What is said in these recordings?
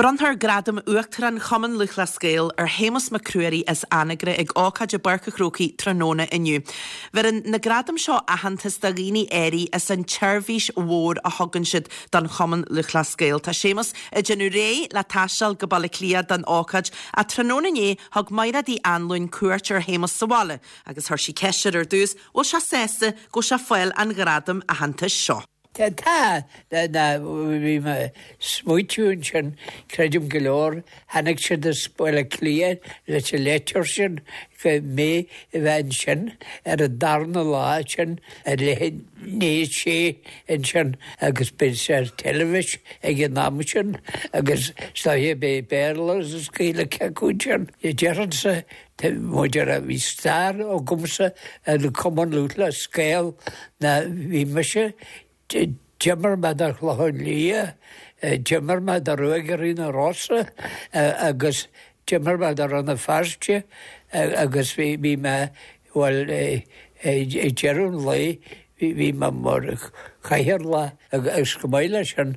Bronnfar Gradam Uachtarán Chumann Lúthchleas Gael ar Shéamus Mac Ruairí as Anagaire ag ócáid i bPáirc a' Chrócaigh tráthnóna inniu. Bheireann na gradaim seo aitheantas do dhaoine áirithe as an tseirbhís mhór a thugann siad don Chumann Lúthchleas Gael. Tá Séamus ag déanamh réidh le taisteal go Baile Átha Cliath don ócáid ach tráthnóna inné thug Mairéad Uí Anluain cuairt ar Shéamus sa bhaile agus chuir sí ceist air ar dtús bhfuil sé sásta go bhfuil sé ag fáil an ghradaim aitheantais seo. Tá, tá, bhí mé ag smaoitiú ansin, creidim go leor, tháinig siad as Baile Átha Cliath leis an leitir sin go mé a bheith ansin ar an darna lá sin ar leath i ndiaidh a sé ansin agus beidh sé ar teilifís ag an am sin agus is dóiche beidh Béarla agus Gaeilge acu ansin. Déarfainnse Maidir le bhí stair agamsa ar an Cumann Lúthchleas Gael ná bhí mise, d'imir mé do Chlochán Liath, d'imir mé do Ruagairí na Rosa agus d'imir mé do Rann na Feirste agus bhí bhí mé bhuel ag deireadh an lae bhí mé mar chathaoirleach agus chomh maith leis sin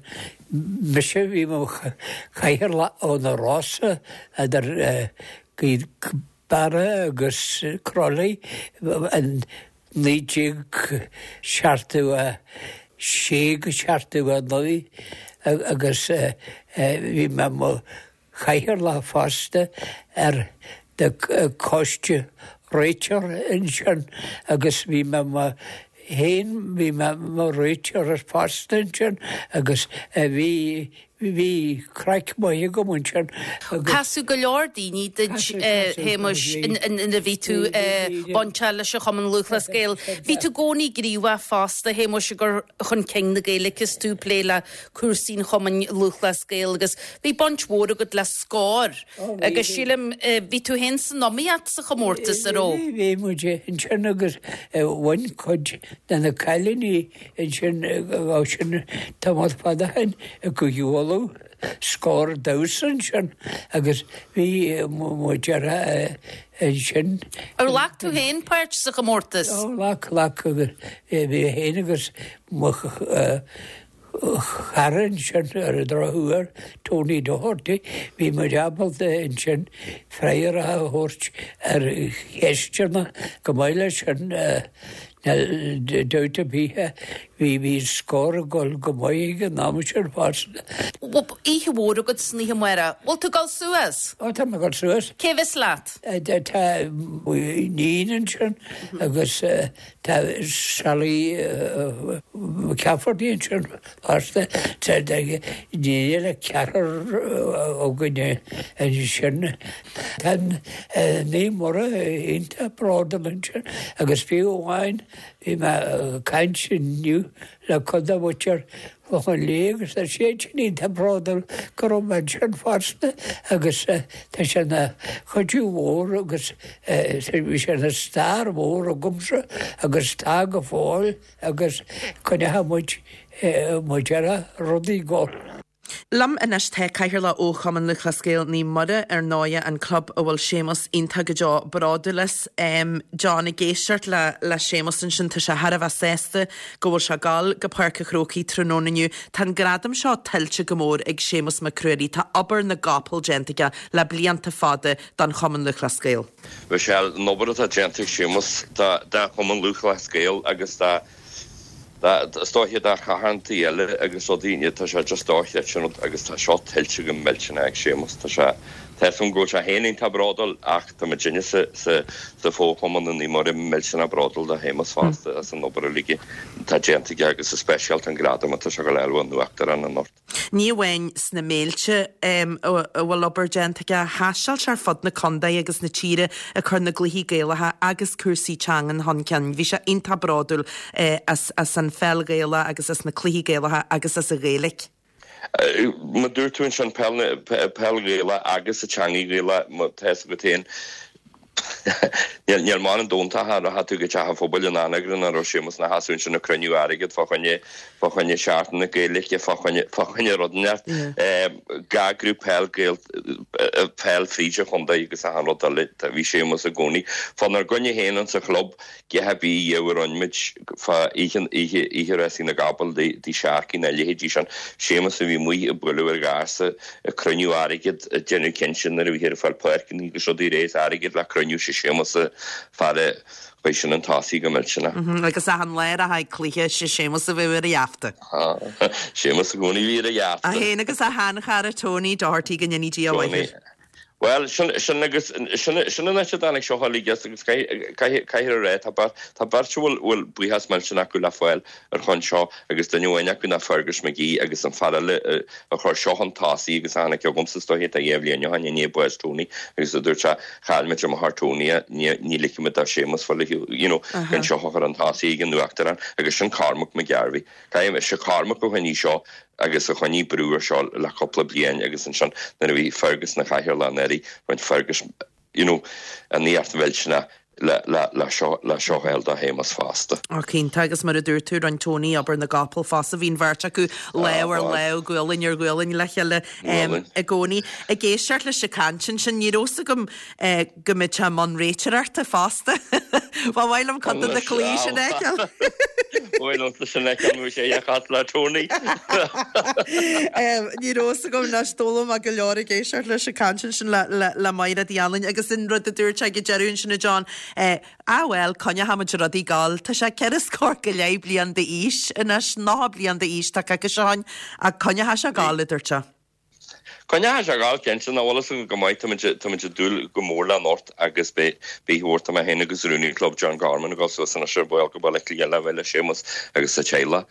mise bhí mo chathaoirleach ó na Rosa idir Gaoth Beara agus Crolly in 1976 go 79 agus bhí mé mo chathaoirleach fosta ar the coiste réiteoir ansin agus bhí mé mo féin bhí mé mo réiteoir fosta ansin agus bhí Bhí craic maith agam ansin agus. Casadh go leor daoine duit, a Shéamuis, nuair a bhí tú bainteach leis an Chumann Lúthchleas Gael. Bhí tú i gcónaí gníomhach fosta, a Shéamuis, i gcur chun cinn na Gaeilge is tú ag plé le cúrsaí an Chumainn Lúthchleas Gael agus bhí baint mhór agat le Scór agus sílim, bhí tú féin san iomaíocht sa chomórtas, an raibh? Bhí, bhí muid ansin agus bhain cuid de na cailíní Ansin ó sin tamall fada ó shin i gCúige Uladh scór damhsa ansin agus bhí muid ar ansin. Ar ghlac tú féin páirt sa chomórtas? Ó ghlac, ghlac agus bhí mé féin agus mo chara ansin ar an drochuair, Tony Doherty, bhí muid ábalta ansin freagra a thabhairt ar cheisteanna chomh maith leis sin. Níl dabht ar bith, bhí bhí Scór ag dul go maith ag an am sin fosta. Oíche mhór agat san oíche amárach. Bhfuil tú ag dul suas? Ó, tá mé ag dul suas. Cé bheas leat? Tá m'iníon ansin agus tá Sally McCafferty ansin fosta. Tá iníon eile, ceathrar againne ansin. Tá Naomh Muire iontach bródúil ansin agus fiú amháin bhí mé ag caint inniu le cuid de mhuintir Chlochán Liath agus tá siad sin iontach bródúil go raibh mé ansin fosta agus tá sé ina chuidiú mhór agus bhí sé ina stair mhór agamsa agus tá go fóill agus coinneoidh muid muid ar rudaí go. Liom anois tá Cathaoirleach ó Chumann Lúthchleas Gael Naomh Muire, ar ndóighe an club a bhfuil Séamus iontach go deo bródúil as. John, ag éisteacht le le Séamus ansin, tá sé thar a bheith sásta go bhfuil sé ag dul go Páirc a' Chrócaigh tráthnóna inniu. Tá an gradam seo tuillte go mór ag Séamus Mac Ruairí. Tá obair na gcapall déanta aige le blianta fada don Chumann Lúthchleas Gael. Michelle, an obair atá déanta ag Séamus do Chumann Lúthchleas Gael agus do Is dóiche do charthanachtaí eile agus rudaí, tá sé just dochreidte an rud agus tá seo tuillte go millteanach ag Séamus. Tá sé, tá 'fhios agam go bhfuil sé féin iontach bródúil ach tá muidinne sa, sa, sa fho-chumann i Naomh Muire millteanach bródúil de Shéamus fosta as an obair uilig atá déanta aige agus go speisialta an gradam atá sé ag dul a fháil ón Uachtarán anocht. Ní amháin sna Méilte a bhfuil obair déanta aige, thaisteal sé ar fud na contae agus na tíre ag cur na gcluichí Gaelacha agus cúrsaí teangan chun cinn. Bhí sé iontach bródúil as an pheil Ghaelach agus as na cluichí Gaelacha agus as an Ghaeilge. Mar dúirt tú ansin, peil Ghaelach agus an teangaidh Ghaelach, tá 'fhios agat féin, Níl m'anam dóntach a rachaidh tú go teach an phobail in Anagaire nach raibh Séamus ina sheasamh ansin ag cruinniú airgead fá choinne fá choinne Seachtain na Gaeilge fá choinne fá choinne rud inteacht. Gach grúpa peil Gael. peil fríd an chontae agus achan rud eile, bhí Séamus i gcónaí fánár gcoinne féin insa chlub, a dhath ar bith a rinne muid fá oíche, oíche, oíche rásaí na gcapall dí Sharkey na leithéidí sin, Séamus a bhí amuigh ag bualadh ar gharsa, ag cruinniú airgead, ag déanamh cinnte nuair a bhíthear ag fáil páirceanna agus rudaí réidh is airgead le cruinniú, sé Séamus an fear a chuaigh sin chun tosaigh go millteanach. Agus achan lá a rachfá ag cluiche, sé Séamus a bheadh ar a gheafta. Séamus i gcónaí a bhí ar a gheafta. É féin agus a sheanchara Tony Doherty go ndéanaí Dia a mhaith air. Bhuel, sin, sin agus, sin, sin an áit a dtáinig seo uilig as agus caithfidh, caithfear a rá, tá beirt, tá beirt a bhfuil, bhfuil buíochas millteanach acu le fáil ar shon seo agus duine amháin acu ná Fergus McGee agus an fear eile a, a chuir seo chun tosaigh agus a tháinig chugamsa is dóiche tá dhá bhliain ó shin i ndiaidh bás Tony agus a dúirt sé, chaill muid amach ar Tony, ní, ní ligfidh muid do Séamus fáil, you know, gan seo a chur chun tosaigh ag an Uachtarán agus sin Cormac McGarvey. Caithfidh, sé Cormac a choinnigh seo agus a choinnigh brú ar seo le cúpla bliain agus ansin nuair a bhí Fergus ina chathaoirleach anuraidh, rinne Fergus you know an iarracht mhillteanach le le le seo le seo a fháil do Shéamus fosta. Ó cinnte agus mar a dúirt tú rinne Tony obair na gcapall fosta, bhí an bheirt acu lámh ar lámh, gualainn ar ghualainn le chéile i gcónaí. Ag éisteacht leis an chaint ansin ní raibh fhios agam go mbeadh sé i mbun réiteoireachta fosta. Ba mhaith liom cuid de na cluichí sin a fheiceáil. Ba mhaith liomsa sin a fheiceáil nó sé a chas le Tony. Ní raibh fhios agam anois, d'fhoghlaim mé go leor ag éisteacht leis an chaint ansin le Maighread Uí Anluain agus an rud a dúirt sé ag an deireadh ansin a John, ah bhuel, coinneochaimid rudaí ag gabháil. Tá sé ceithre scór go leith bliain d'aois anois, 90 bliain d'aois tá coicís ó shin, ach coinneochaidh sé ag gabháil, a dúirt sé. Coinneochaidh sé ag gabháil, cinnte, nach bhfuil fhios agam go maith, táimid, táimid ag dúil go mór le anocht agus beidh, beidh mhór, tá mé féin agus rúnaí an chlub John Gorman ag dul suas anois ar ball go Baile Átha Cliath le bheith le Séamus agus a teaghlach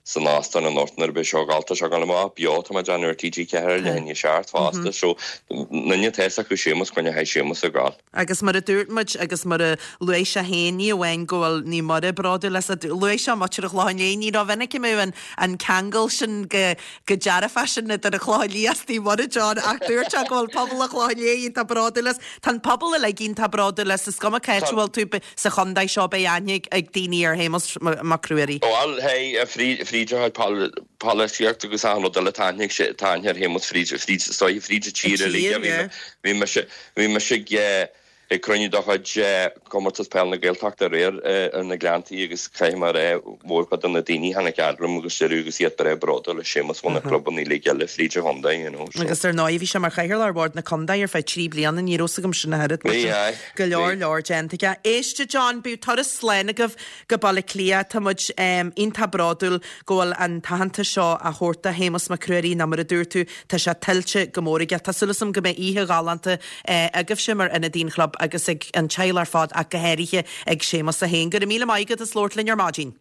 san óstán anocht nuair a bheidh seo ag gabháil, tá sé ag gabháil amach beo, tá mé ag déanamh ar TG4 ar leath i ndiaidh a 7 fosta, so, duine atá fhios acu Séamus, coinneochaidh Séamus ag gabháil. Agus mar a dúirt muid, agus mar a luaigh sé féin, ní amháin go bhfuil Naomh Muire bródúil as, luaigh sé muintir an Chlocháin Léith, ní rómhinic a mbeadh an ceangal sin go dearfach sin idir an Chlochán Liath is Naomh Muire, John, ach dúirt sé go bhfuil pobal an Chlocháin Léith iontach bródúil as. Tá an pobal uilig iontach bródúil as, is cuma cá háit a bhfuil tú sa chontae seo, beidh aithne ag daoine ar Shéamus Mac Ruairí. Bhuel, hey, fríd a chuid polaitíocht agus achan rud eile, tá aithne ag, tá aithne ar Shéamus fríd, fríd, is dóiche fríd an tír uilig. Bhí mise, bhí mise ag, ag cruinniú de chuid Comórtas Peil na Gaeltachta aréir ar na Gleanntaí agus caithfidh mé a rá, mórchuid de na daoine a tháinig fhad liom agus deireadh agus iad breá bródúil as Séamus bhunaigh clubanna uilig eile fríd an chontae, you know, so. Agus ar ndóigh bhí sé mar chathaoirleach ar Bhord na Contae ar feadh 3 bliana, ní raibh fhios agam sin ach oiread, mar sin go leor leor déanta aige. Éist a John, bíodh turas slán agaibh go Baile Átha Cliath. Tá muid iontach bródúil go bhfuil an t-aitheantas seo á thabhairt do Shéamus Mac Ruairí nó mar a dúirt tú, tá sé tuillte go mór aige. Tá súil agam go mbeidh oíche ghalánta agaibhse mar ionadaí an chlub agus ag an teaghlach ar fad ach go háirithe ag Séamus é féin. Go raibh míle maith agat as labhairt linn ar maidin.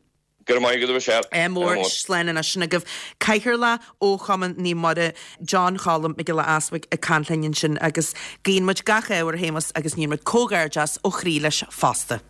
Go raibh maith agat a Mhichelle. Ádh mór, slán anois sin agaibh. Cathaoirleach ó Chumann Naomh Muire, John Cholm Mac Giolla Easbuig ag caint linn ansin agus guíonn muid gach ádh ar Shéamus agus níonn muid comhghairdeas ó chroí leis fosta.